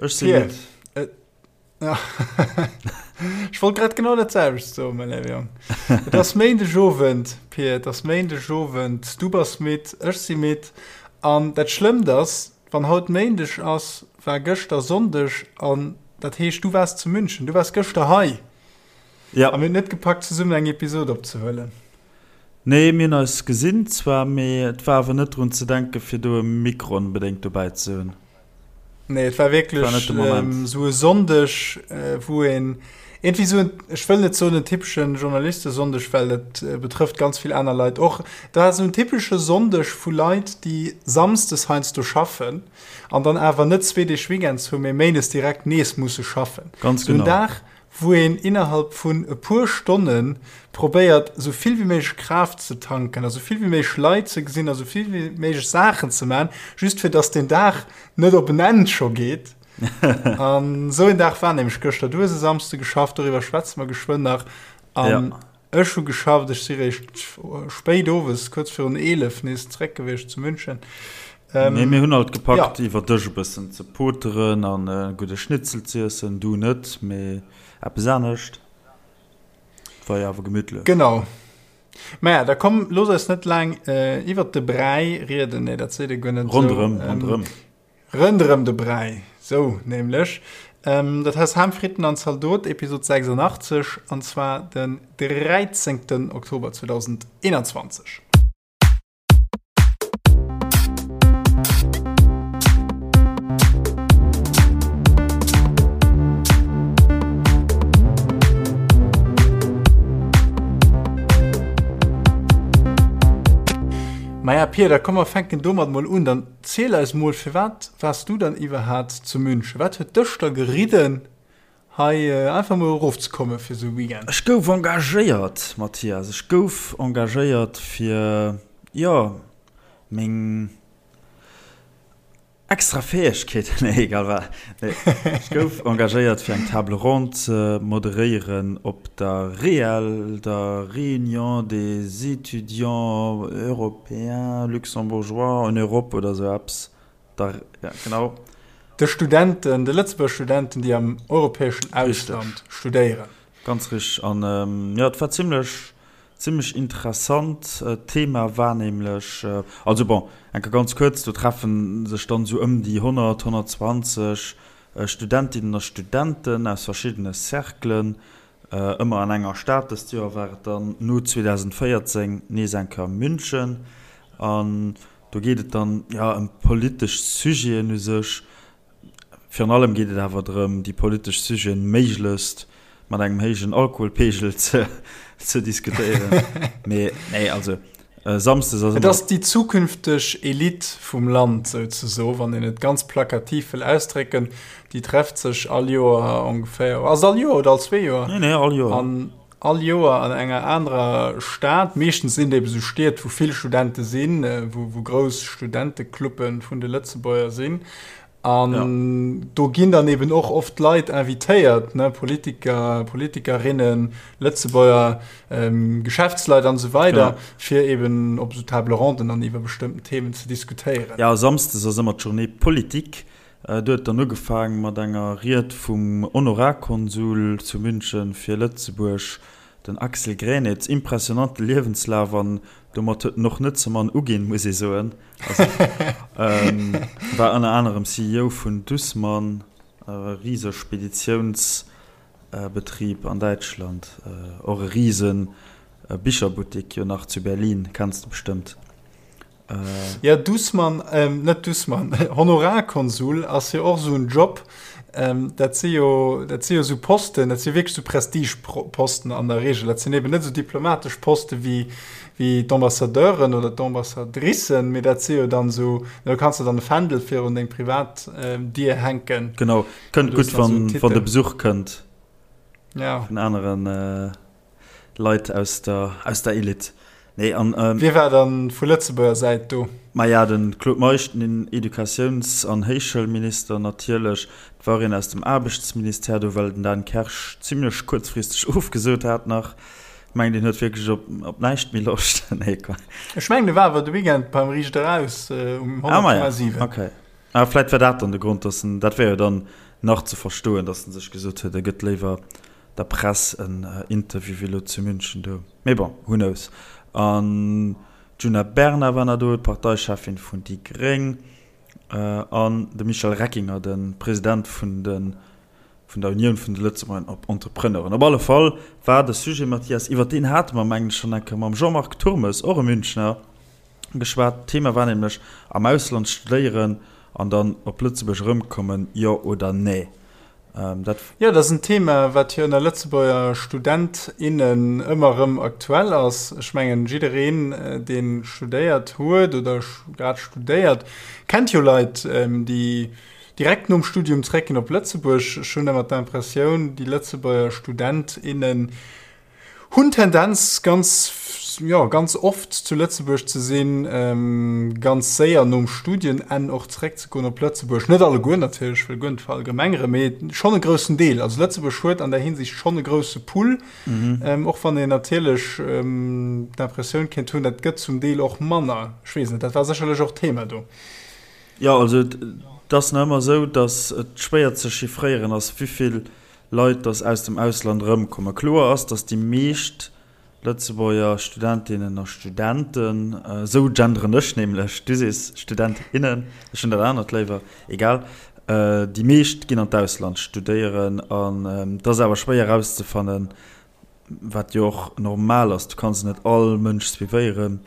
Ech si Pir, midd. et, ech wollt grad genau dat selwecht soen, mäi léiwe Jong. Et ass Méindegowend, Pir, et ass Méindegowend. Du bass midd, ech si midd. An dat Schlëmmt ass, wann haut Méindeg ass, war gëschter Sonndeg an dat heescht, du waars zu München, du waars gëschter hei. Ja. A mir hunn et net gepackt, zesummen eng Episod opzehuelen. Nee, mir hunn eis gesinn zwar, mee et war awer net drun ze denken, fir do e Mikro onbedéngt dobäi ze hunn. Nee, et war wierklech War net de Moment. esou e Sonndeg, wou een iergendwéi esou en, ech wëll net soen en typeschen Journalistesonndeg, well dat betrëfft ganz vill aner Leit och. Et war esou en typesche Sonndeg vu Leit, déi samsdes heiansdo schaffen an dann awer net zwee Deeg Weekends hunn, mee méindes direkt nees musse schaffen. Ganz Esou en genau. Dag, wou een innerhalb vun e puer Stonne probéiert, esou vill wéi méiglech Kraaft ze tanken a sou vill wéi méiglech Leit ze gesinn a sou vill wéi méiglech Saachen ze man, just fir dass deen Dag net op en Enn scho geet. An esou een Dag war nämlech gëschter. Du hues e Samsde geschafft, doriwwer schwätze mer geschwënn nach. An ech hu geschafft, ech si réischt spéit owes, kuerz virun 11 nees zeréck gewiescht zu München. Nee, mir hunn alt gepackt, iwwer Dësch e bëssen ze poteren an e gudde Schnitzel z'iessen. Du net, mee eppes anescht. Et war jo awer gemütlech. Genau. Maja, da komm, looss eis net laang iwwert de Bräi rieden. Nee, dat seet ee guer net esou. Ronderëm, ronderëm. Ronderëm de Bräi, sou nämlech. Dat ass Ham, Fritten an Zaldot, Episod 86, an zwar den 13. Oktober 2021. Maja Pir, da komm mer fänken domat mol un. Dann ziel eis mol, firwat waars du dann iwwerhaat zu München? Wat huet dech da geridden Hei einfach mol erof ze komme fir sou e Weekend. Ech gouf engagéiert, Mathias, ech gouf engagéiert fir, jo, meng extra Fäegkeeten, nee, egal wat, nee, ech gouf engagéiert fir eng Table ronde ze moderéieren op der REEL, der Réunion des étudiants européens luxembourgeois en Europe oder sou eppes. Da, ja, genau. De Studenten, de Lëtzebuerger Studenten, déi am europäeschen Ausland studéieren. Ganz richteg. An jo, et war zimlech, zimlech interessant. D'Thema war nämlech, also bon, eng Kéier ganz kuerz, do treffe sech dann esou ëm déi 100, 120 Studentinnen a Studenten aus verschiddene Cerclen, ëmmer an enger Stad. Dëst Joer war et dann no 2014 nees eng Kéier München. An Do geet et dann, jo, ëm politesch Sujeten u sech. Virun allem geet et awer drëm, déi politesch Sujeten méiglechst mat engem héijen Alkoholpeegel ze, ze diskutéieren. Mee, nee, also samsdes ass ëmmer. Et ass déi zukünfteg Elite vum Land souzesoen, wann een et ganz plakativ wëll ausdrécken. Déi trefft sech all Joer ongeféier, ass et all Joer oder all zwee Joer? Nee, nee, all Joer. An all Joer an enger anerer Stad. Meeschtens sinn et ebe sou Stied, wou vill Studente sinn, wou grouss Studentecluppe vun de Lëtzebuerger sinn. An ja. do ginn dann eben och oft Leit invitéiert, ne? Politiker, Politikerinnen, Lëtzebuerger, ähm, Geschäftsleit an esou weider, ja. fir eben op sou Table ronden dann iwwer bestëmmten Themen ze diskutéieren. Ja, samsdes ass ëmmer d'Journée politique. Do huet dann ugefaang mat enger Ried vum Honorarkonsul zu München fir Lëtzebuerg, den Axel Gränitz. Impressionante Liewenslaf an domat huet en och net ze mann uginn, muss ee soen. Also war ënner anerem CEO vun Dussmann, e rise Speditiounsbetrib an Däitschland, och e rise Bicherbuttik jo nach zu Berlin, kenns de bestëmmt. Ja, Dussmann, ähm, net Dussmann, Honorarkonsul ass jo och esou en Job. Ähm, dat si jo, dat si jo esou Posten, dat si wierklech esou Prestigeposten an der Regel. Dat sinn eben net esou diplomatesch Poste wéi, wéi d'Ambassadeuren oder d'Ambassadricen, mee dat si jo dann esou, do kanns de dann e Fändel virun deng privat ähm, Dier hänken. Genau, kënnt gutt, wann, wann de Besuch kënnt. Ja. Vun aneren. Äh Leit aus der, aus der Elite. Nee, an, ähm, Wie war dann vu Lëtzebuerger Säit do? Maja, den Claude Meisch, den Educatiouns an Héichschoulminister natierlech. Et war een aus dem Aarbechtsministère do, well den Dan Kersch zimlech kuerzfristeg ofgesot hat nach. Ech mengen, deen huet wierklech op, op näischt méi Loscht. Nee, Quatsch. Ech mengen, e war awer de Weekend beim Riicht Eraus um Ah, maja, 100,7. okay. Ah, vläit war dat dann de Grond, dass en, dat wär jo dann. nach ze verstoen, datt en sech gesot huet, e gëtt léiwer der Press en Interview wéi elo zu München do. Mee bon, who knows. An d'Djuna Bernard war nach do, d'Parteicheffin vun déi gréng, an de Michel Reckinger, de President vun de vun der Unioun vun de Lëtzebuerger Entrepreneuren. Op alle Fall war de Sujet, Mathias, iwwer deen hate mer, mengen ech, schonn eng Kéier mam Jean-Marc Turmes, och e Münchner, geschwat. D'Thema war nämlech am Ausland studéieren an dann op Lëtzebuerg erëmkommen, jo oder nee? Dat. Jo, dat ass en Thema, wat jo ënner Lëtzebuerger Student, innen ëmmer erëm aktuell ass. Ech mengen, jiddereen, dee studéiert huet oder grad studéiert, kennt jo Leit, déi direkt nom Studium zréckginn op Lëtzebuerg. Ech hunn ëmmer d'Impressioun, déi Lëtzebuerger Student, innen Hunn Tendenz ganz, jo, ganz oft zu Lëtzebuerg ze sinn, ganz séier nom Studienenn och zeréckzegoen op Lëtzebuerg. Net alleguer natierlech, ech wëll guer net verallgemengeren, mee schonn e groussen Deel. Also Lëtzebuerg huet an där Hinsicht schonn e grousse Pool, och wann een natierlech d'Impressioun kéint hunn, dat gëtt zum Deel och manner. Ech weess net, dat war sécherlech och Thema do. Jo, also et ass nach ëmmer esou, datt et schwéier ze chiffréieren ass, wéivill Leit, dass aus dem Ausland erëmkommen. Kloer ass, dass déi meescht Lëtzebuerger Studentinnen a Studenten, esou genderen ech nämlech, du sees Student, innen, ech hunn dat anert léiwer, egal, déi meescht ginn an d'Ausland studéieren an et ass awer schwéier erauszefannen, wat jo och normal ass, du kanns net all Mënsch suivéieren,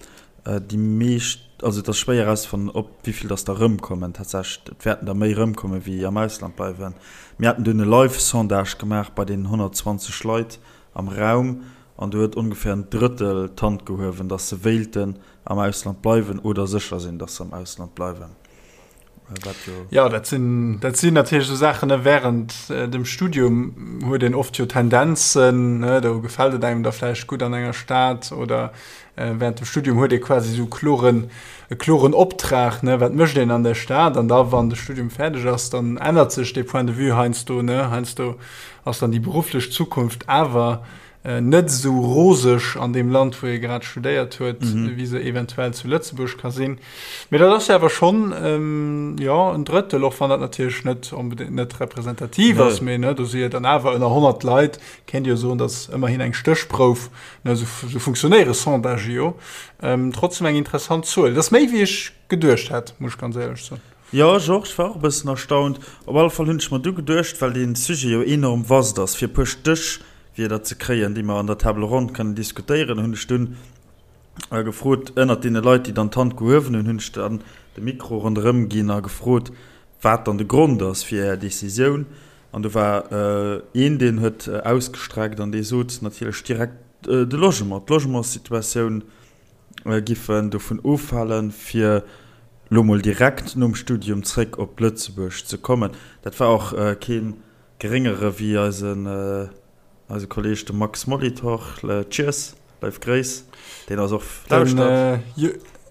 déi meescht, also et ass schwéier erauszefannen, ob wéi vill dass der erëmkommen tatsächlech, et wäerten der méi erëmkommen, wéi am Ausland bleiwen. Mir haten dunn e Live-Sondage gemaach bei deenen 120 Leit am Raum an do huet ongeféier en Drëttel d'Hand gehuewen, dass se wéilten am Ausland bleiwen oder sécher sinn, dass se am Ausland bleiwen. Jo, dat sinn, dat sinn natierlech esou Saachen, ne, während dem Studium huet een oft jo Tendenzen, ne, do gefält et engem da vläicht gutt an enger Stad oder während dem Studium huet ee quasi esou kloren, e kloren Optrag, ne, wat mécht een an der Stad an da wann de Studium fäerdeg ass, dann ännert sech dee Point de vue heiansdo, ne, heiansdo ass dann déi berufflech Zukunft awer net esou roseg an deem Land, wou ee grad studéiert huet, wéi se eventuell zu Lëtzebuerg ka sinn. Mee dat ass jo awer schonn, jo, en Drëttel, och wann dat natierlech net onbedéngt net representativ ass, mee ne, do si jo dann awer ënner 100 Leit, kéint ee jo soen, datt ëmmerhin eng Stéchprouf, ne, esou esou funktionéiere Sondagë jo, trotzdem eng interessant Zuel. Dat ass méi, wéi ech geduecht hätt, muss ech ganz éierlech soen. Jo, ech och. Ech war och e bëssen erstaunt. Op alle Fall hunn ech mer du geduecht, well dee Sujet jo enorm vast ass, fir e puer Stéchwierder ze kréien, déi mer an der Table ronde kënnen diskutéieren, hunn ech dunn gefrot, ënnert deene Leit, déi dann d'Hand gehuewen hunn, hunn ech dann de Mikro ronderëm ginn a gefrot, wat dann de Grond ass fir Är Decisioun. An do war een, deen huet ausgestreckt an dee sot natierlech direkt, de Logement, d'Logementssituatioun. giffen dovun ofhalen, fir lo mol direkt nom Studium zréck op Lëtzebuerg ze kommen. Dat war och kee geréngere wéi eisen eise Kolleg de Max Molitor. Cheers, leif Gréiss, deen eis och lauschtert.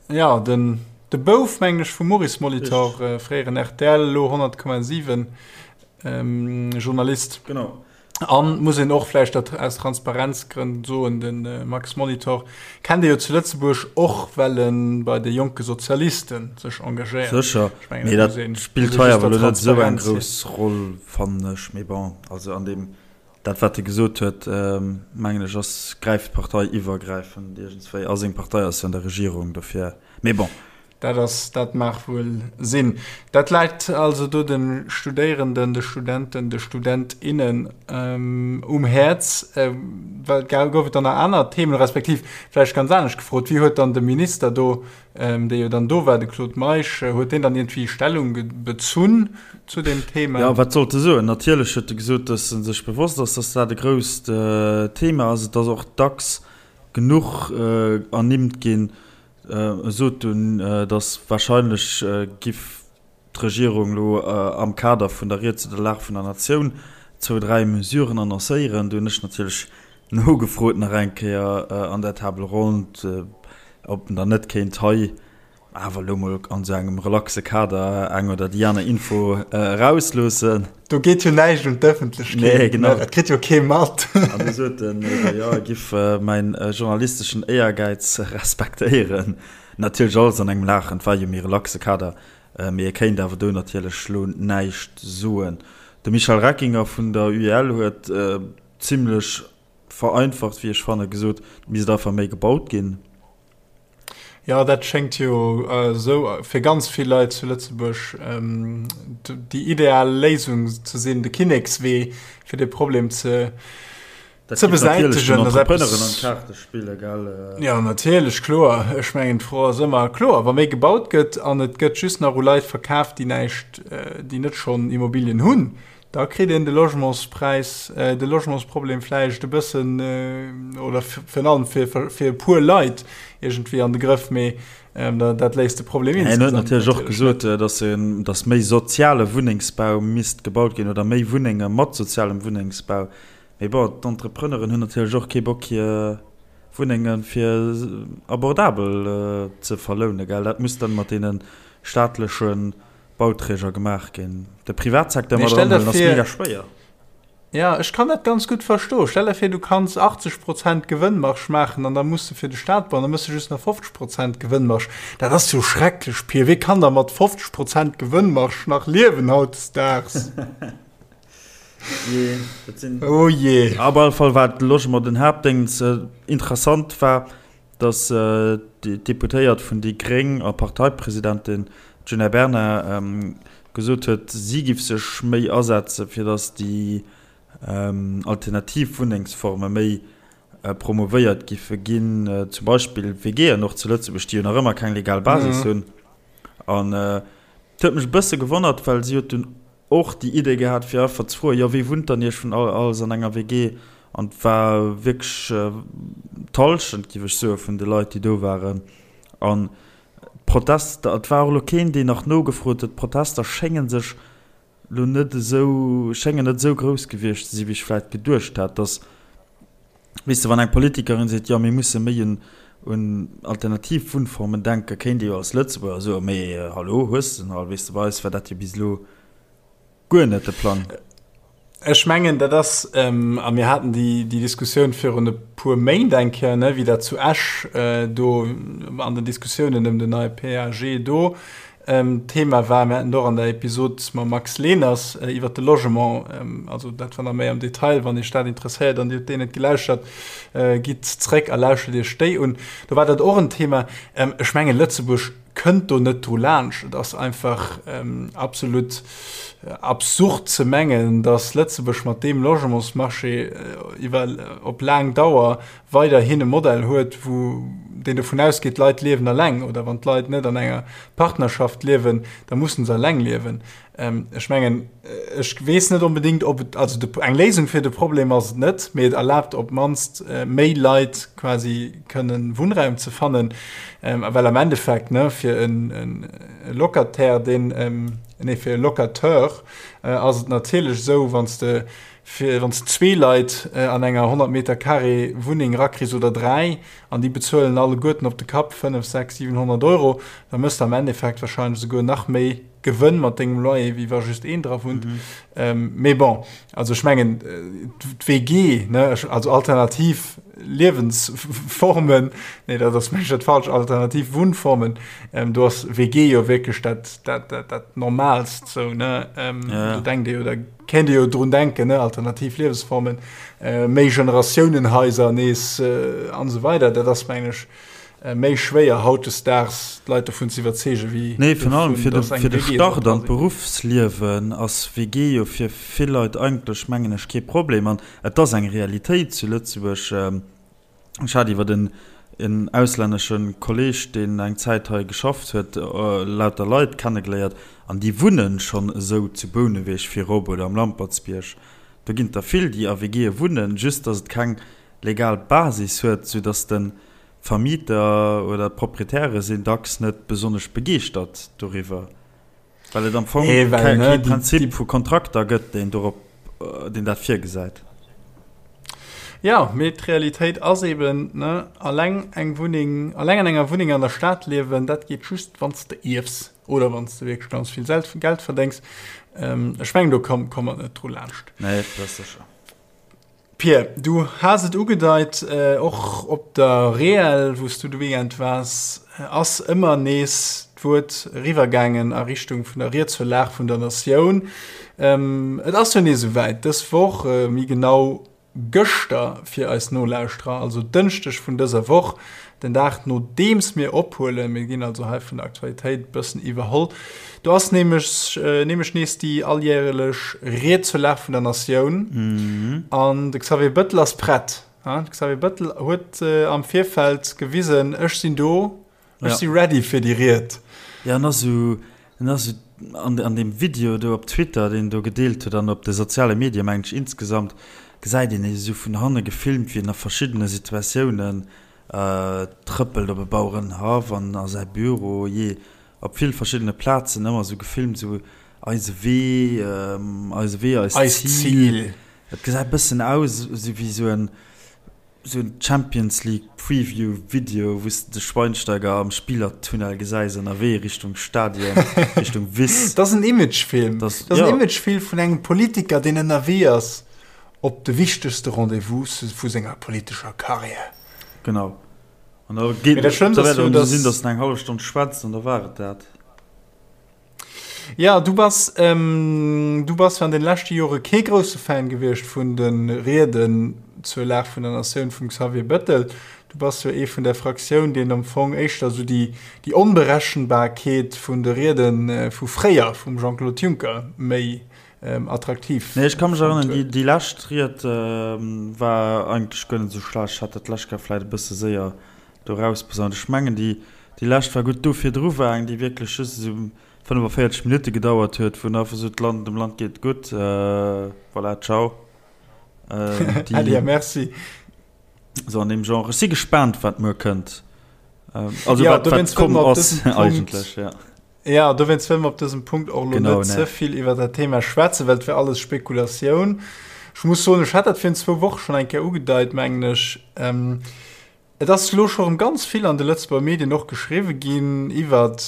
Jo, den de Bouf, mengen ech, vum Maurice Molitor, fréieren rtl, elo 100,7 Journalist. Genau. An muss een och vläicht dat aus Transparenzgrënn soen, de Max Molitor kennt ee jo zu Lëtzebuerg och, well e bei de Jonke Sozialiste sech engagéiert. Sécher, mee dat spillt hei awer elo net esou eng grouss Roll, fannen ech. Mee bon, also an deem, dat wat e gesot huet, mengen ech, ass, gräift parteiiwwergräifend iergendswéi. A seng Partei ass jo an der Regierung, dofir, mee bon. Dat ass, dat mag wuel sinn. Dat läit also do de Studéierenden, de Studenten, de Student, innen um Häerz. Well gouf et dann nach aner Themen, respektiv vläicht ganz anescht gefrot, Wéi huet dann de Minister do, dee jo dann do war, de Claude Meisch, huet deen dann iergendwéi Stellung bezunn zu deem Thema? Jo, wat sollt e soen? Natierlech huet e gesot, datt e sech bewosst ass, datt dat e grousst Thema ass. Et ass och dacks genuch ernimmt ginn. E sot dunn, datt warscheinlech giff d'Regierung elo am Kader vun der Ried zu der Lag vun der Natioun zwou, dräi Mesuren annoncéieren. Do hunn ech natierlech nogefrot nach eng Kéier an der Table ronde, ob en dann net kéint hei awer elo mol an esou engem relaxe Kader eng oder déi aner Info erausloossen. Do geet jo näischt un d'Ëffentlechkeet. Nee, genau. Dat kritt jo kee mat. An du sot en ebe, jo, e giff mäin journalisteschen Éiergäiz respektéieren. Natierlech alles an engem Laachen, et war jo méi relaxe Kader, mee e kéint awer do natierlech lo näischt soen. De Michel Reckinger vun der UEL huet zimlech vereinfacht, wéi ech fannen, gesot, et misst einfach méi gebaut ginn. Jo, dat schéngt jo esou fir ganz vill Leit zu Lëtzebuerg déi ideal Léisung ze sinn, de Kinnekswee, fir dee Problem ze ze besäitegen. Dat geet natierlech den Entrepreneuren an d'Kaarte spillen, gell? Jo, natierlech, kloer. Ech mengen, d'Fro ass ëmmer, kloer, wa méi gebaut gëtt an et gëtt just nach u Leit verkaaft, déi näischt, déi net schonn Immobilien hunn, Da kritt een de Logementspräis, de Logementsproblem vläicht e bëssen, oder virun allem fir, fir e puer Leit iergendwéi an de Grëff, mee dat léist de Problem insgesamt natierlech net. En huet natierlech och gesot, datt en, datt méi soziale Wunnengsbau misst gebaut ginn oder méi Wunnenge mat sozialem Wunnengsbau. Mee bon, d'Entrepreneuren hunn natierlech och kee Bock hir Wunnenge fir abordabel ze verlounen, gell. Dat muss dann mat deene staatleche Bauträger gemaach ginn. De Privatsecteur mat eranhuelen ass mega schwéier. Ja, ech kann dat ganz gutt verstoen. Stell der vir, du kanns 80 Prozent Gewënnmarge maachen an da muss de fir de Staat bauen, da méchs de just nach 50 Prozent Gewënnmarge. Dat ass jo schrecklech, Pir. Wee kann da mat 50 Prozent Gewënnmarge nach liewen hautdesdaags? Jee, dat sinn. Oh jee. Op alle Fall war de Logement den Haaptdéngens. Interessant war, datt d'Deputéiert vun déi Gréng a Parteipresidentin Djuna Bernard gesot huet, si giff sech méi asetze fir datt déi alternativ Wunnengsforme méi promouvéiert giffe ginn, zum Beispill WGen och zu Lëtzebuerg, déi jo nach ëmmer keng legal Basis hunn. An et huet mech e bësse gewonnert, well si huet dunn och déi Idee gehat fir einfach ze froen, jo wee wunnt dann iech vun all alles an enger WG? An et war wierklech d'Hallschent, géif ech soen, vun de Leit déi do waren. An d'Protester, et war och elo keen deen nach nogefrot huet, d'Protester schénge sech elo net esou, schéngen net esou grouss gewiescht ze sinn, wéi ech vläicht geduecht hat, dass Weess de, wann eng Politikerin seet, jo mir musse méi un un alternativ Wunnformen denken, kéint ee jo als Lëtzebuerger soen, mee hallo, hues de en all? Weess de, bei eis war dat jo bis elo guer net de Plang. Ech mengen, dat ass, a mir haten déi déi Diskussioun virun e puer Méint eng Kéier, ne, wéi dat zu Esch do an den Diskussiounen ëm den neie PAG do Thema war. Mir haten et och an der Episod mam Max Leners iwwert de Logement, also dat war nach méi am Detail. Wann Iech dat interesséiert an Dir hutt déi net gelauschtert, gitt zréck a lauschtert Iech déi un. Do war dat och en Thema. Ech mengen, Lëtzebuerg kënnt do net dru laanscht. Et ass einfach absolut absurd ze mengen, datt Lëtzebuerg mat deem Logementsmarché iwwer op laang Dauer weiderhin e Modell huet, wou deen dovun ausgeet, d'Leit liewen alleng oder wann d'Leit net an enger Partnerschaft liewen, da mussen se alleng liewen. Ech mengen, ech weess net onbedéngt, ob et, also de, eng Léisung fir de Problem ass et net, mee et erlaabt op d'mannst méi Leit quasi kënnen Wunnraum ze fannen, well am Endeffekt, ne, fir e Locataire, deen, nee, fir e Locateur ass et natierlech esou, wann s de Fir wann s de zwee Leit an enger 100 Meter carré Wunneng rakriss oder dräi an déi bezuelen alleguerten op de Kapp 5, 6, 700 Euro, da méchs de am Endeffekt warscheinlech esouguer nach méi Gewënn mat dengem Loyer, wéi wa just een dra wunnt. Mee bon, also ech mengen d'WG, ne, also alternativ Liewensformen, nee dat ass mengen ech dat falsch, alternativ Wunnformen, do ass WG jo wierklech dat, dat, dat, dat Normaalst sou, ne. Do denkt ee jo da Kéint ee jo drun denken, ne, alternativ Liewesformen, méi Generatiounenhaiser nees an esou weider. Dat ass, mengen ech, méi schwéier hautdesdaags d'Leit dovun ze iwwerzeegen, wéi Nee, virun allem fir de, fir de Start an d'Beruffsliewen ass WG jo fir vill Leit eigentlech, mengen ech, kee Problem. An et ass eng Realitéit zu Lëtzebuerg. Ech hat iwwer en en auslännesche Kolleg, deen eng Zäit hei geschafft huet, lauter Leit kennegeléiert an déi wunnen schonn esou zu Bouneweg virop oder am Lampertsbierg. Do ginn et der vill, déi a WGe wunnen, just datt et keng legal Basis huet, soudatt de Vermieter oder d'Proprietäre sinn dacks net besonnesch begeeschtert doriwwer. Well et am Fong nee, well, ne, kee Prinzip vu Kontrakter gëtt, deen dorop, äh, deen dat virgesäit. Ja, mee d'Realitéit ass eben, ne, alleng eng Wunneng, alleng an enger Wunneng an der Stad liewen, dat geet just, wann s de ierfs oder wann s de wierklech ganz vill Geld verdéngs. Ähm, ech mengen, do komm, komm mer net dru laanscht. Nee, dat ass sécher. Pir, du has et ugedeit, och op der Reel, wou s du de Weekend waars, ass ëmmer nees. d'Wuert eriwwergaangen a Richtung vun der Ried zur Lag vun der Natioun. Et ass jo nees esouwäit, dës Woch, méi genau gëschter fir eis Nolauschterer, also Dënschdeg vun dëser Woch, den Dag nodeems mir ophuelen, mir ginn also hei vun der Aktualitéit e bëssen iwwerholl, do ass nämlech nämlech nees déi alljärelech Ried zur Lag vun der Natioun an de Xavier Bëttel ass prett. De Xavier Bëttel huet am Virfeld gewisen, ech sinn do, Ech si ready fir déi Ried. Jo, en ass esou, en ass esou an, an deem Video do op Twitter, deen en do gedeelt huet an op de soziale Medie mengen ech insgesamt, gesäit een e esou vun hanne gefilmt, wéi en a verschiddene Situatiounen trëppelt op e Bauerenhaff an a säi Büro, jee op vill verschiddene Plazen ëmmer esou gefilmt, esou eise Wee, eise Wee, eist Zil. Et gesäit e bëssen aus esou wéi esou en Sou en Champions League Preview Video wous de de Schweinsteiger am Spielertunnel gesäis ënnerwee Richtung Stadion, Richtung Wiss. Dat ass en Imagefilm. Dat ass en Imagefilm vun engem Politiker deen ënnerwee ass op de wichtegste Rendez-vouse vu senger politescher Karriär. Genau. An da geet et esou sinn, datt en eng hallef Stonn schwätzt an da war et dat. Ja, du bass, du bass jo an den leschte Jore kee grousse Fan gewiescht vun de Rieden zur Lag vun der Natioun vum Xavier Bettel. Du bass jo ee vun der Fraktioun, deen am Fong éischter esou déi, déi Onberechenbarkeet vun de Riede vu fréier, vum Jean-Claude Juncker, méi attraktiv Nee, ech ka mech erënneren, déi, déi lescht Ried war eigentlech guer net esou schlecht. Ech hat dat d'lescht Kéier vläicht e bësse séier do rausposaunt. Ech mengen, déi, déi lescht war gutt. Do virdru war eng, déi wierklech just esou 45 Minutte gedauert huet, wou en einfach sot, d'Land, dem Land geet et gutt, voilà, ciao. Déi, Äddi a Merci. Esou an deem Genre. Ech si gespaant, wat muer kënnt. Also ja, wat, wat komm ass eigentlech, ja. Ja, dowéinst wëlle mer op dësem Punkt och elo net ze vill iwwer dat Thema schwätzen, well et wär alles Spekulatioun. Ech muss soen, ech hat dat virun zwou Woche schonn eng Kéier ugedeit, mengen ech. Et ass elo scho rëm ganz vill an de Lëtzebuerger Medien och geschriwwe ginn iwwert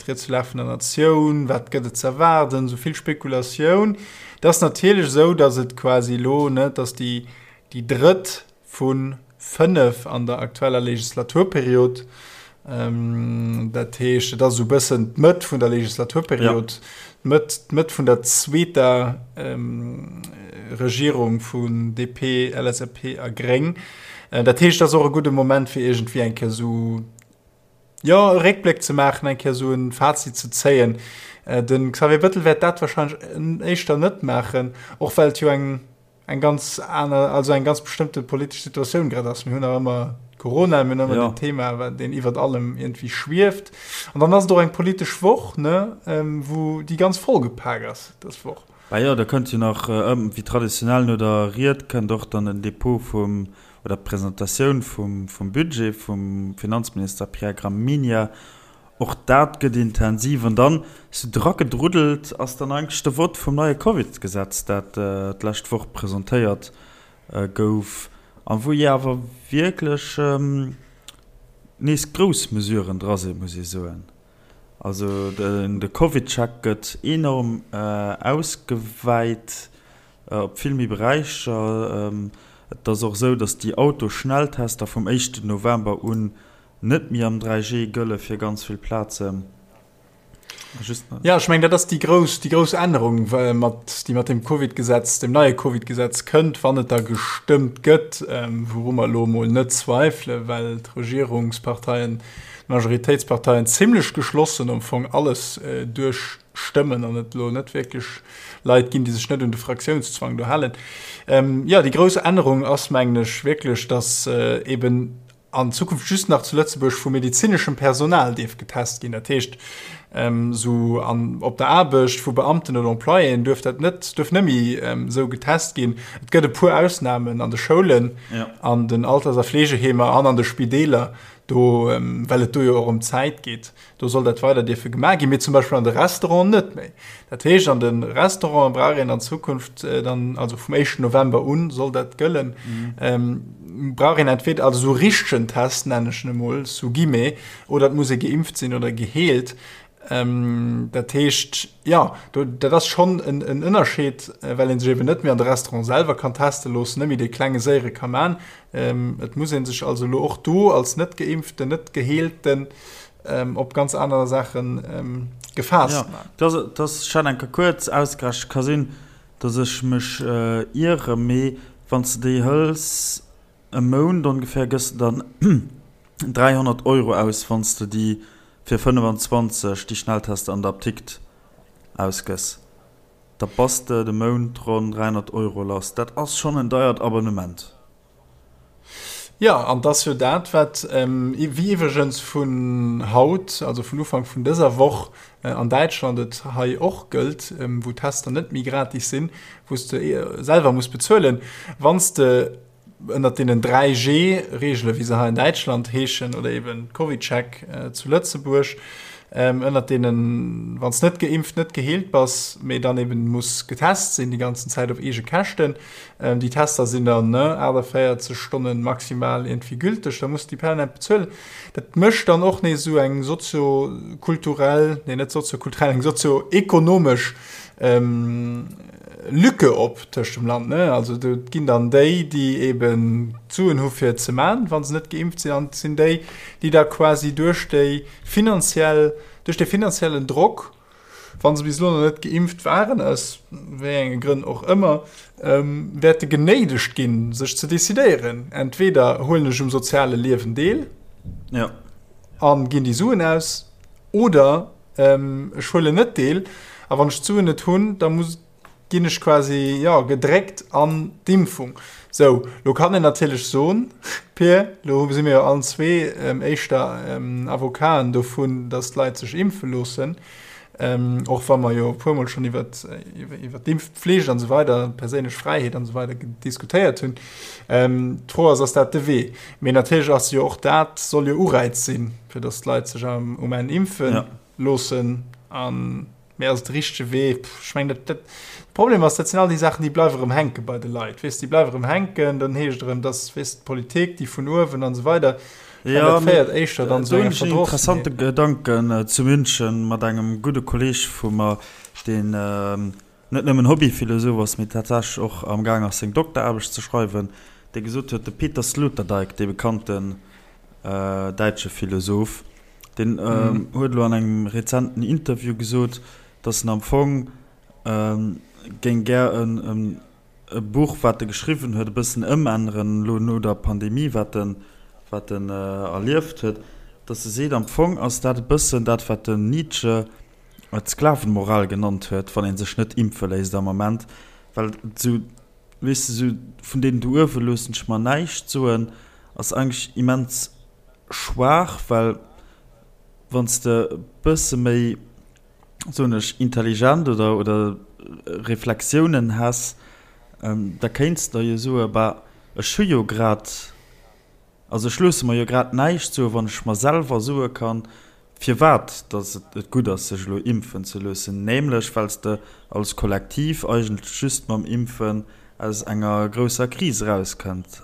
d'Ried zur Lag vun der Natioun, wat gëtt et ze erwaarden, esou vill Spekulatioun. Et ass natierlech esou, datt et quasi elo, ne, et ass déi, déi drëtt vu 5 an der aktueller Legislaturperiod. Dat heescht, et ass esou e bëssen d'Mëtt vun der Legislaturperiod, d'Mëtt, d'Mëtt vun der zweeter Regierung vun DP, LSAP a Gréng. Dat heescht, et ass och e gudde Moment, fir iergendwéi eng Kéier esou, jo, e Réckbléck ze maachen, eng Kéier esou e Fazit ze zéien. De Xavier Bettel wäert dat warscheinlech éischter net maachen, och well et jo eng, eng ganz aner, also eng ganz bestëmmte politesch Situatioun grad ass. Mir hunn nach ëmmer Corona, mir hunn ëmmer ja. den Thema, wat deen iwwert allem irgendwie schwieft. An dann ass et och eng politesch Woch, ne, ähm, wou déi ganz vollgepak ass dës Woch. Bah jo, da kënnt jo nach, äh, wéi traditionell no der Ried kënnt och dann den Depot vum, oder d'Presentatioun vum, vum Budget vum Finanzminister Pierre Gramegna. Och dat gëtt intensiv. An dann, sou dragedruddelt, ass dann eigentlech de Vott vum neie Covid-Gesetz, dat d'lescht Woch presentéiert gouf a wou jo awer wierklech nees grouss Mesuren dra sinn, muss ee soen. Also de CovidCheck gëtt enorm ausgewäit op vill méi Beräicher. Et ass och esou, datt déi Autoschnelltester vum éischten November un Net méi am 3G gëlle fir ganz vill Plazen. Just ja, ech meng dat ass déi grouss, déi grouss Ännerung, mat, déi mat dem Covid-Gesetz, dem neie Covid-Gesetz kënnt, wann et da gestëmmt gëtt, ähm, wouru mer elo emol net zweifele, well d'Regierungsparteien, d'Majoritéitsparteien zimlech geschlossen am Fong alles äh, duerchstëmmen an et elo net wierklech Leit ginn, déi sech net un de Fraktiounszwang do halen. Ähm, ja, déi grouss Ännerung ass, mengen ech, wierklech, dass äh, eben an Zukunft just nach zu Lëtzebuerg vu medezineschem Personal dierf getest ginn. Dat heescht, esou an op der Aarbecht vu Beamten oder Employéen duerf dat net, duerf net méi esou getest ginn. Et gëtt e puer Ausnamen an de Schoulen, an den Alters a Fleegeheemer an an de Spideeler, do, well et do jo och ëm d'Zäit geet. Do soll dat weider dierfe gemaach ginn, mee zum Beispill an de Restauranten net méi. Dat heescht, an de Restauranten brauch een an Zukunft dann, also vum éischten November un soll dat gëllen, brauch een entweder, also esou richtegen Test nennen ech en emol, sous guillemets, oder et muss ee geimpft sinn oder geheelt. Dat heescht, jo, do, dat ass schonn en Ënnerscheed, well ee sech eben net méi an de Restaurant selwer kann teste loossen, net méi dee klenge séiere ka man. Et muss ee sech also elo och do als net-Geimpften, net-Geheelten. Op ganz aner Saache gefaasst man. Ja, dat ass ech hat eng Kéier kuerz ausgerechent, ka sinn, datt ech mech iere, mee wann s de déi hëls e Mount ongeféier, gëss de dann 300 Euro aus, wann s de déi fir 25 déi Schnelltester an der Apdikt ausgëss. Da bass de de Mount ronn 300 Euro lass. Dat ass schonn en deiert Abonnement. Jo, an 't ass jo dat, wat, wéi iwwregens vun haut, also vun Ufank vun dëser Woch an Däitschland et hei och gëllt, wou d'Tester net méi gratis sinn, wou s de selwer muss bezuelen, wann s de ënnert deenen 3G-Reegelen, wéi se hei an Däitschland heeschen, oder eben CovidCheck zu Lëtzebuerg, ënnert deenen, wann s net geimpft, net geheelt bass, mee dann eben muss getest sinn déi ganzen Zäit op eege Käschten, Déi Tester sinn dann 48 Stonnen maximal iergendwéi gülteg, da muss de déi permanent bezuelen. Dat mécht dann och nees esou eng soziokulturell, nee net soziokulturell, eng sozioekonomesch Lücke op tëscht dem Land. Also do ginn dann déi, déi eben d'Suen hu fir et ze man, wa se net geimpft sinn, an et sinn déi, déi da quasi duerch déi finanziell, duerch de finanziellen Drock, wa se bis elo nach net geimpft waren, aus wéi enge Grënn och ëmmer, wäerte genéidegt ginn, sech ze decidéieren, Entweder huelen ech um soziale Liewen deel a ginn déi Suen aus, oder ech huelen net deel a wann ech d'Suen net hunn, da muss ginn ech quasi, jo, gedréckt an d'Impfung. Sou, lo kann een natierlech soen, Pir, lo si mir jo allen zwee éischter Avocaten dovun, datt d'Leit sech impfe loossen, och wa mer jo e puermol schonn iwwert, iwwert d'Impfpflicht an esou weider, d'perséinlech Fräiheet an esou weider diskutéiert hunn. D'Fro ass, ass dat de Wee? Mee natierlech ass jo och dat, soll jo Ureiz sinn, fir datt d'Leit sech um Enn impfe loossen an, Mee ass et de richtege Wee? Pff, ech mengen, dat, dat, de Problem ass, dat sinn all déi Saachen, déi bleiwe erëm hänke bei de Leit, weess, déi bleiwe erëm hänken, dann heescht et erëm, dass, weess, d'Politik, déi vun uewen an esou weider. Ech mengen, dat féiert éischter dann zu enger Verdrossenheet. Interessante Gedanken zu München mat engem gudde Kolleeg vu mer, deen net nëmmen Hobbyphilosoph ass, mee tatsächlech och am Gaang ass, seng Dokteraarbecht ze schreiwen, dee gesot huet, de Peter Sloterdijk, dee bekannten däitsche Philosoph, deen huet elo an engem rezenten Interview gesot, datt en am Fong géing gär e Buch, wat e geschriwwen huet, e bëssen ëmänneren, elo no der Pandemie, wat en wat en erlieft huet, datt e seet, am Fong ass dat e bëssen dat, wat den Nietzsche d'Sklavenmoral genannt huet, wann ee sech net impfe léisst am Ament, well et esou, weess de, esou vun deenen do uewe loossen ech mer näischt soen, ass eigentlech immens schwaach, well wann s de e bësse méi, soen ech, intelligent oder, oder Reflexiounen häss, da kéints de der jo soen, bah, ech hu jo grad, also ech loosse mer jo grad näischt soen, wann ech mer selwer soe kann, firwat dass et gutt ass, sech elo impfen ze loossen, nämlech well s de als Kollektiv eigentlech just mam Impfen aus enger grousser Kris erauskënnt.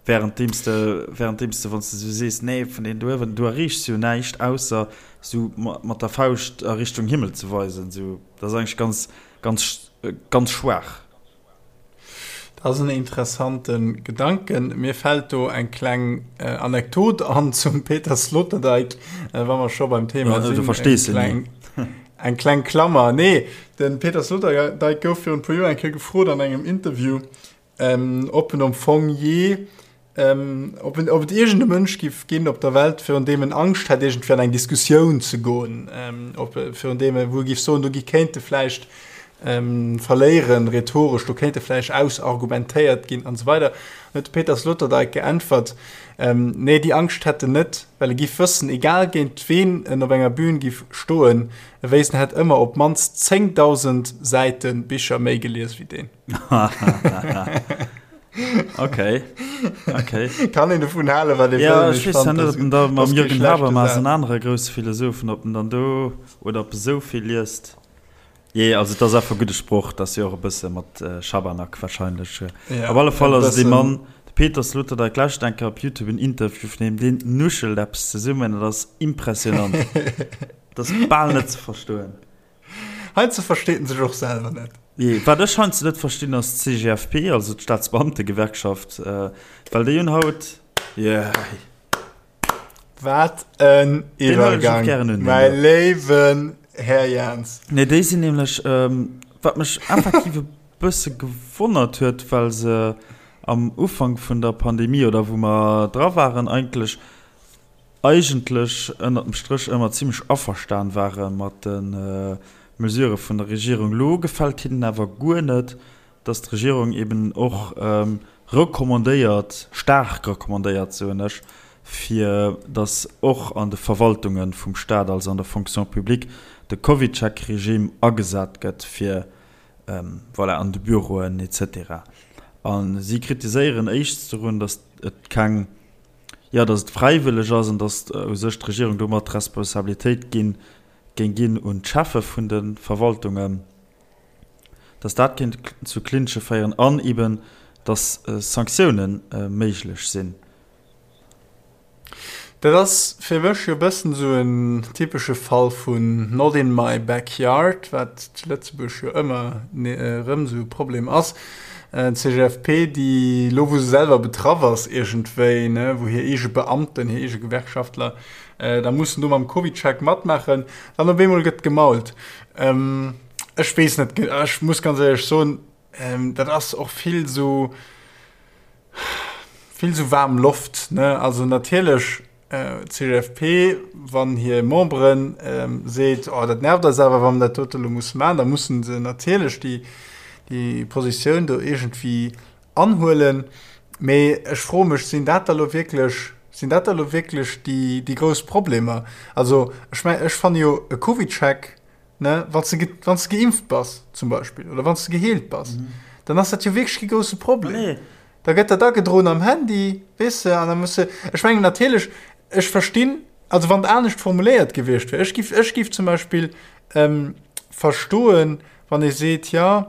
Währenddeems de, währenddeems de, wann s de esou sees, nee, vun deenen do uewen, du erreechs jo näischt, ausser esou mat der Fauscht a Richtung Himmel ze weisen. Esou, dat ass eigentlech ganz, ganz, ganz schwaach. Dat ass en interessante Gedanken. Mir fält do eng kleng Anekdot an zum Peter Sloterdijk, wa mer scho beim Thema sinn. Du verstees se ni. Eng kleng Klammer. Nee, de Peter Sloterdijk gouf virun e puer Joer eng Kéier gefrot an engem Interview, Ob en am Fong jee, ob en, ob et iergend e Mënsch giff ginn op der Welt, virun deem en Angscht hätt, iergendwéi an eng Diskussioun ze goen, ob, virun deem e, wou e giff soen, do gi kéint e vläicht verléieren, rhetoresch, do kéint e vläicht ausargumentéiert ginn an esou weider. An huet de Peter Sloterdijk geäntwert, nee, déi Angscht hätt en net, well e giff wëssen, egal géint ween en op enger Bühn giff stoen, e wéisst, en hätt ëmmer op d'mannst 10.000 Säite Bicher méi gelies wéi deen. Okay. Okay. Kann een dovun halen, wat ee wëll. Ja, ech weess ja net, ob en da mam Jürgen Habermas, en anere grousse Philosophen, ob en dann do oder ob e sou vill liest. Jee, also et ass einfach e gudde Sproch, dat ass jo och e bësse mat Schabernack wahrscheinlech. Ja, op alle Fall ass et ee Mann, de Peter Sloterdijk, lauschtert eng Kéier op Youtube en Interview vun him, deen nuschelt eppes zesummen, dat ass impressionant. Dat ass bal net ze verstoen. Heiansdo versteet en sech och selwer net. Jee, wat ech heiansdo net verstinn ass d'CGFP, also d'Staatsbeamtegewerkschaft, well déi hunn haut, jee. Wat en Iwwergang, mäi léiwen Här Jans. Nee, déi sinn nämlech, wat mech effektiv e bësse gewonnert huet, well se am Ufank vun der Pandemie oder wou mer dra waren, eigentlech, eigentlech ënnert dem Stréch ëmmer zimmlech averstan ware mat de Mesurë vun der Regierung. Elo gefält hinnen awer guer net, dass d'Regierung eben och recommandéiert, staark recommandéiert, soen ech, fir dass och an de Verwaltunge vum Stat, also an der Fonction publique, de CovidCheck-Regime agesat gëtt, fir, voilà, an de Büroen et cetera. A si kritiséieren éischts dorun, dass et keng, jo, dass et fräiwëlleg ass an dass u sech d'Regierung domat d'Responsabilitéit ginn, géing ginn un d'Cheffe vun de Verwaltungen. dass dat kéint zu Clinche féieren an eben, dass Sanktioune méiglech sinn. Dat ass fir mech jo e bëssen esou en typesche Fall vun not in my backyard, wat zu Lëtzebuerg jo ëmmer erëm esou e Problem ass. D'CGFP, déi elo wou se selwer betraff ass iergendwéi, ne, wou hir eege Beamten, hir eege Gewerkschaftler da mussen do mam CovidCheck matmaachen, dann op eemol gëtt gemault. Ech weess net, ech muss ganz éierlech soen, dat ass och vill esou, vill esou waarm Loft, ne? Also natierlech d'CGFP, wann hir Memberen seet, oh dat nervt eis awer, wa mer dat dote elo musse maachen, da mussen se natierlech déi, déi Positioun do iergendwéi anhuelen. Mee ech froe mech, sinn dat da elo wierklech, sinn dat da elo wierklech déi, déi grouss Problemer? Also ech mengen, ech fanne jo e CovidCheck, ne, wann s de, wann s de geimpft bass zum Beispill oder wann s de geheelt bass, dann ass dat jo wierklech kee grousse Problem. Nee. Da gëtt dat agedroen am Handy, weess de, an da muss de, ech mengen natierlech, ech verstinn, also wann et anescht formuléiert gewiescht wär, ech giff, ech giff zum Beispill ähm, verstoen, wann ee seet, jo,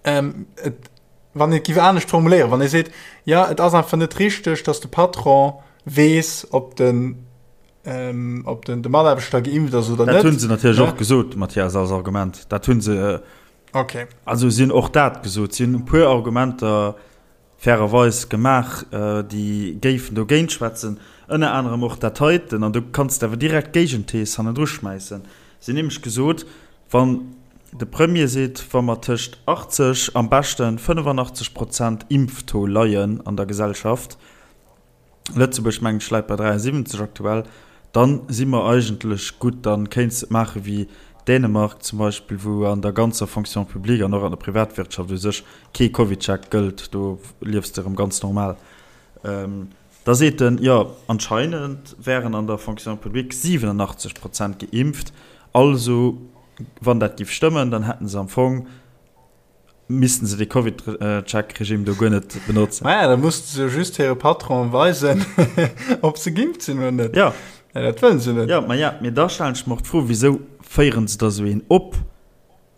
ähm, et, wann et giff anescht formuléieren, wann ee seet, jo, et ass einfach net richteg, datt de Patron weess, ob den, ähm, ob den, de Mataarbechter geimpft ass oder net. Dat hunn se natierlech och gesot, Mathias, als Argument. Dat hunn se. Okay. Also si hunn och dat gesot. Si hunn e puer Argumenter fairerweis gemaach, déi géifen dogéint schwätzen, ënner anerem och dat heiten. An do kanns de awer direkt d'Géigenthees hannendru schmäissen. Si hunn nämlech gesot, wann de Premier seet, wa mer tëscht 80, am beschten 85 Prozent Impftaux leien an der Gesellschaft, Lëtzebuerg mengen ech läit bei 73 aktuell, dann si mer eigentlech gutt. Dann kéints de et maache wéi Dänemark zum Beispill, wou an der ganzer Fonction publique an och an der Privatwirtschaft u sech kee CovidCheck gëllt, do liefs de erëm ganz normal. Da seet en, jo anscheinend wären an der Fonction publique 87 Prozent geimpft, also wann dat giff stëmmen, dann hätten se am Fong, missten se de Covid-Check-Regime do guer net benotzen. Maja, da musste se just hire Patron weisen, ob se geimpft sinn oder net. Ja. Ja, dat wëllen se net. Ja, ma ja, mee da stellen ech mer och d'Fro, Wisou féieren se da sou een op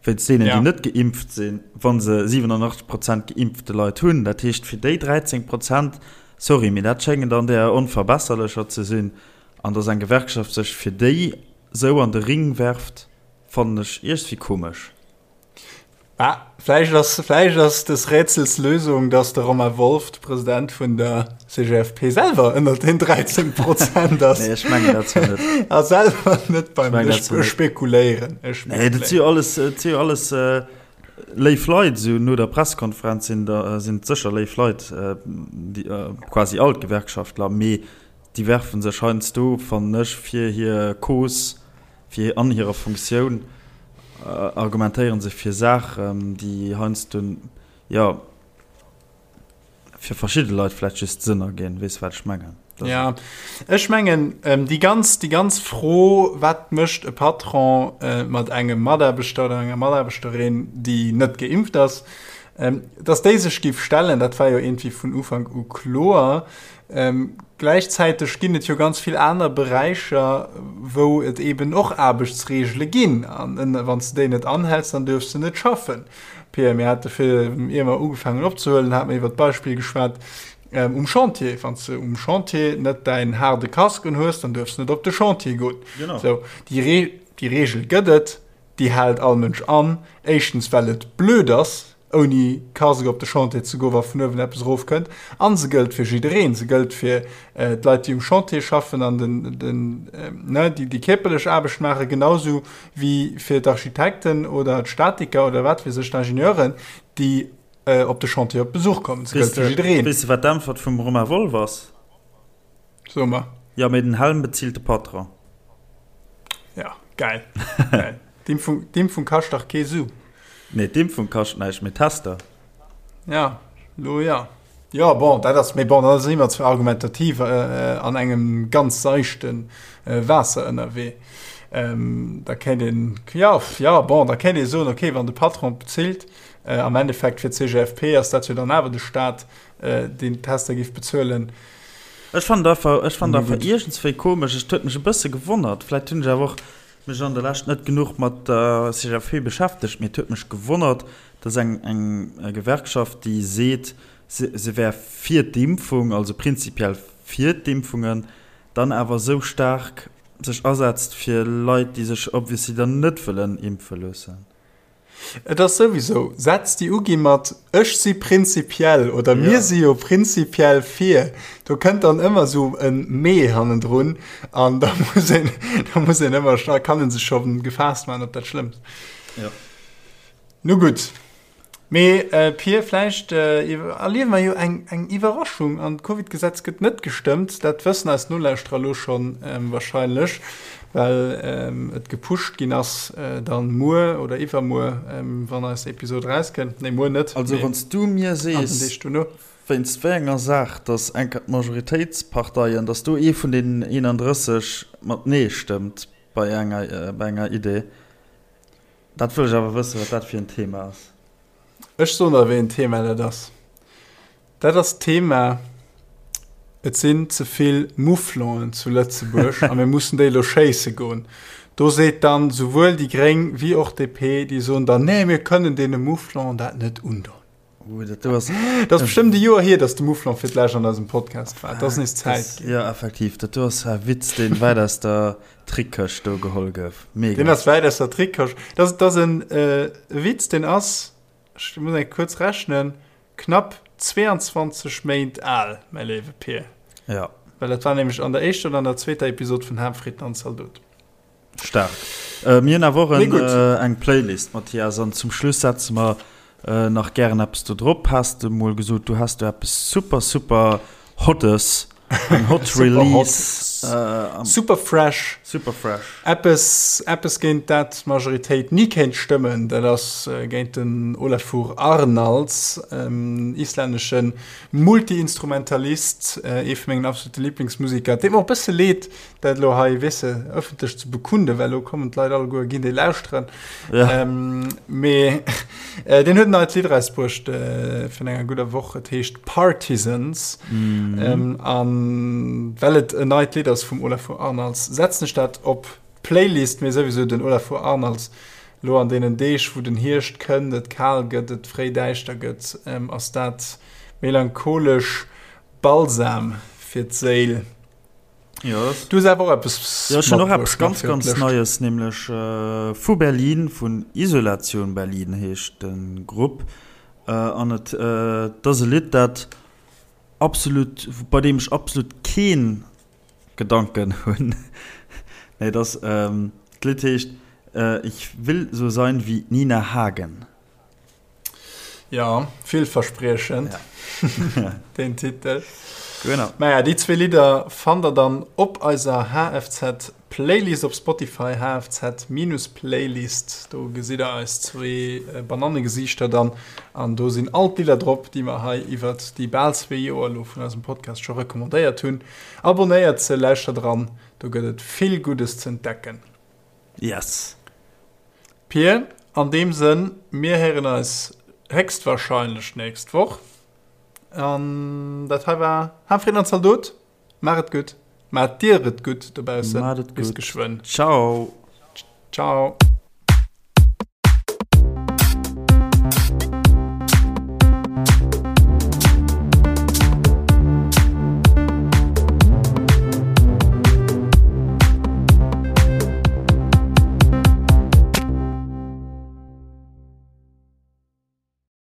wéinst deenen, déi net geimpft sinn, wa se 87 Prozent geimpfte Leit hunn? Dat heescht, fir déi 13 Prozent, sorry, mee dat schéngen dann där Onverbesserlecher ze sinn. An datt eng Gewerkschaft sech fir déi sou an de Ring werft, fannen ech iergendwéi komesch. Ah, vläicht ass, vläicht ass des Rätsels Lösung, dass de Romain Wolff, de President vun der CGFP, selwer ënnert den 13 Prozent ass. Nee, ech mengen dat zwar net. A selwer net beim Ech mengen dat Ech zwar net. spekuléieren. Ech Nee, dat si jo alles, dat si jo alles äh, léif Leit. Esou no der Pressekonferenz sinn der, sinn et sécher léif Leit, äh, déi, äh, quasi all d'Gewerkschaftler, mee déi werfe sech heiansdo, fannen ech, fir hir Cause Fir an hirer Funktioun argumentéiere se fir Saachen, déi heiansdo, jo, fir verschidde Leit vläicht just Sënn erginn. Weess de, wat ech mengen? Jo, ech mengen, déi ganz, déi ganz Fro, Wat mécht e Patron mat engem Mataarbechter oder enger Mataarbechterin, déi net geimpft ass? Dass déi sech géif stellen, dat war jo iergendwéi vun Ufank u kloer. Gläichzäiteg ginn et jo ganz vill aner Beräicher, wou et eeben och Aarbechtsreegele ginn. An wann s de déi net anhäls, dann duerfs de net schaffen. Pierre, mir hate fir, ier mer ugefaangen hunn opzehuelen, hate mer iwwert d'Beispill geschwat um Chantier. Wann s de um Chantier net däin haarde Casque unhues, dann duerfs de net op de Chantier goen. Sou, déi Reegel gëtt et, déi hält all Mënsch an. Éischtens, well et blöd ass. ouni Casque op de Chantier ze goen, wa vun uewen eppes erofkënnt. A se gëllt fir jiddereen. Se gëllt fir d'Leit, déi um Chantier schaffen an den, den, ne, déi déi kierperlech Aarbecht maachen, genausou wéi fir d'Architekten oder d'Statiker oder wat weess ech, d'Ingenieuren, déi op de Chantier op Besuch kommen. Se gëllt fir jiddereen. Weess de, wat d'Äntwert vum Romain Wolff ass? So mer. Jo, mee den Helm bezilt de Patron. Ja, geil. Geil. D'Impfung, d'Impfung kascht dach kee Su. Nee, d'Impfung kascht näischt, mee d'Tester. Ja, lo ja. Jo, bon, dat ass, mee bon, da si mer zwar argumentativ an engem ganz seichte Waasser ënnerwee. Da kéint een, jo, jo, bon, da kéint ee soen, okay, wann de Patron bezilt, am Endeffekt fir d'CGFP ass dat jo dann awer de Staat, deen d'Tester géif bezuelen. Ech fannen et einfach, ech fannen et einfach iergendswéi komesch. Et huet mech e bësse gewonnert. Vläit hunn ech awer och mech an der Lescht net genuch mat der CGFP beschäftegt, mee et huet mech gewonnert, dass eng, eng Gewerkschaft, déi seet, se, se wär fir d'Impfung, also prinzipiell fir d'Impfungen, dann awer esou staark sech asetzt fir Leit, déi sech obviously dann net wëllen impfe loossen. Et ass souwisou Sätz, déi ugi mat ech si prinzipiell oder mir si jo prinzipiell fir. Do kënnt dann ëmmer esou e mee hannendrun an da muss een, da muss een ëmmer, da kann ee sech scho gefaasst maachen op dat Schlëmmst. Jo. Nu gutt. Mee Pir, vläicht erliewe mer jo eng eng Iwwerraschung an d'Covid-Gesetz gëtt net gestëmmt. Dat wëssen eis Nolauschterer elo schonn wahrscheinlech. Well et gepusht ginn ass, dann muer oder iwwermuer, wann eis Episod erauskënnt. Nee, muer net, Also wann s du mir sees, wéinst wéi enger Saach dass enker d'Majoritéitsparteien, dass do ee vun deenen 31 mat Nee stëmmt bei enger, bei enger Idee, dat wëll ech awer wëssen, wat dat fir en Thema ass. Ech soen der, wéi en Thema dat ass. Dat ass d'Thema, Et sinn ze vill Mouflonen zu Lëtzebuerg a mir mussen déi elo schéisse goen. Do seet dann souwuel déi Gréng wéi och DP, déi soen dann, Nee, mir kënnen deene Mouflonen dat net undoen. Uh, dat do ass. Dat ass bestëmmt e Joer hier, datt de Mouflon fir d'lescht an eisem Podcast war. Et ass nees Zäit ginn. Jo, effektiv, dat do ass e Witz, deen wäit aus der Trickkëscht do geholl gouf. Mega. Deen ass wäit aus der Trickkëscht. Dat ass e Witz, deen ass, ech muss eng kuerz rechnen, Knapp 22 Méint al, mäi léiwe Pir. Ja. Well dat war nämlech an der éischter oder an der zweeter Episod vun Harmfrieden an Zaldot. Staark. Äh, mir hunn awer och en, äh, eng Playlist, Mathias, an zum Schluss setze mer äh, nach gären eppes do drop. Has de mol gesot, du häss do eppes super, super Hottes. Eng Hot Release. Äh, super fresh. Super fresh. Eppes, eppes géint dat d'Majoritéit ni kéint stëmmen, dat ass äh, géint den Olafur Arnalds, ähm, islännesche Multi-Instrumentalist, äh, ee vu mengen absolute Lieblingsmusiker. Et deet mer och e bësse leed, dat elo hei, weess de, ëffentlech ze bekunden, well elo kommen d'Leit alleguer, ginn déi lauschteren. Ja. Ähm, mee äh, deen huet en neit Lidd erausbruecht äh, virun enger gudder Woch. Et heescht Partisans. Mhm. Ähm, an well et en neit Lidd ass vum Olafur Arnalds, setzen ech dat op d'Playlist. Mee souwisou den Olafur Arnalds, lo an deenen Deeg, wou den Hierscht kënnt, et kal gëtt, et fréi däischter gëtt, ähm, ass dat melancholesch Balsam fir d'Séil. Ja, das Du hues awer och eppes Ja, ech hunn och matbruecht eppes nach ganz, fir ganz d'Lëscht. Neies, nämlech vu Berlin, vun Isolation Berlin heescht de Grupp. An et ass e Lidd, dat absolut, bei deem ech absolut kee Gedanken hunn. Nee, et ass, d'Lidd heescht Ich will so sein wie Nina Hagen. Ja, villverspriechend, ja. den Titel. Genau. Naja, déi zwee Lidder fannt der dann op eiser HFZ Playlist op Spotify, HFZ-Playlist. Do gesitt der eis zwee äh, Banannegesiichter dann. An do sinn all d'Lidder drop, déi mer hei iwwert déi bal zwee Joer elo vun eisem Podcast scho recommandéiert hunn. Abonnéiert se, lauschtert eran, do gëtt et vill Guddes z'entdecken. Yes. Pir, an deem Sënn, mir héieren eis héchstwahrscheinlech d'nächst Woch. An dat hei war Hafreen an Zaldot. Maach et gutt, maacht dir et gutt dobaussen. Maat et Bis gutt. geschwënn. Ciao. Ciao.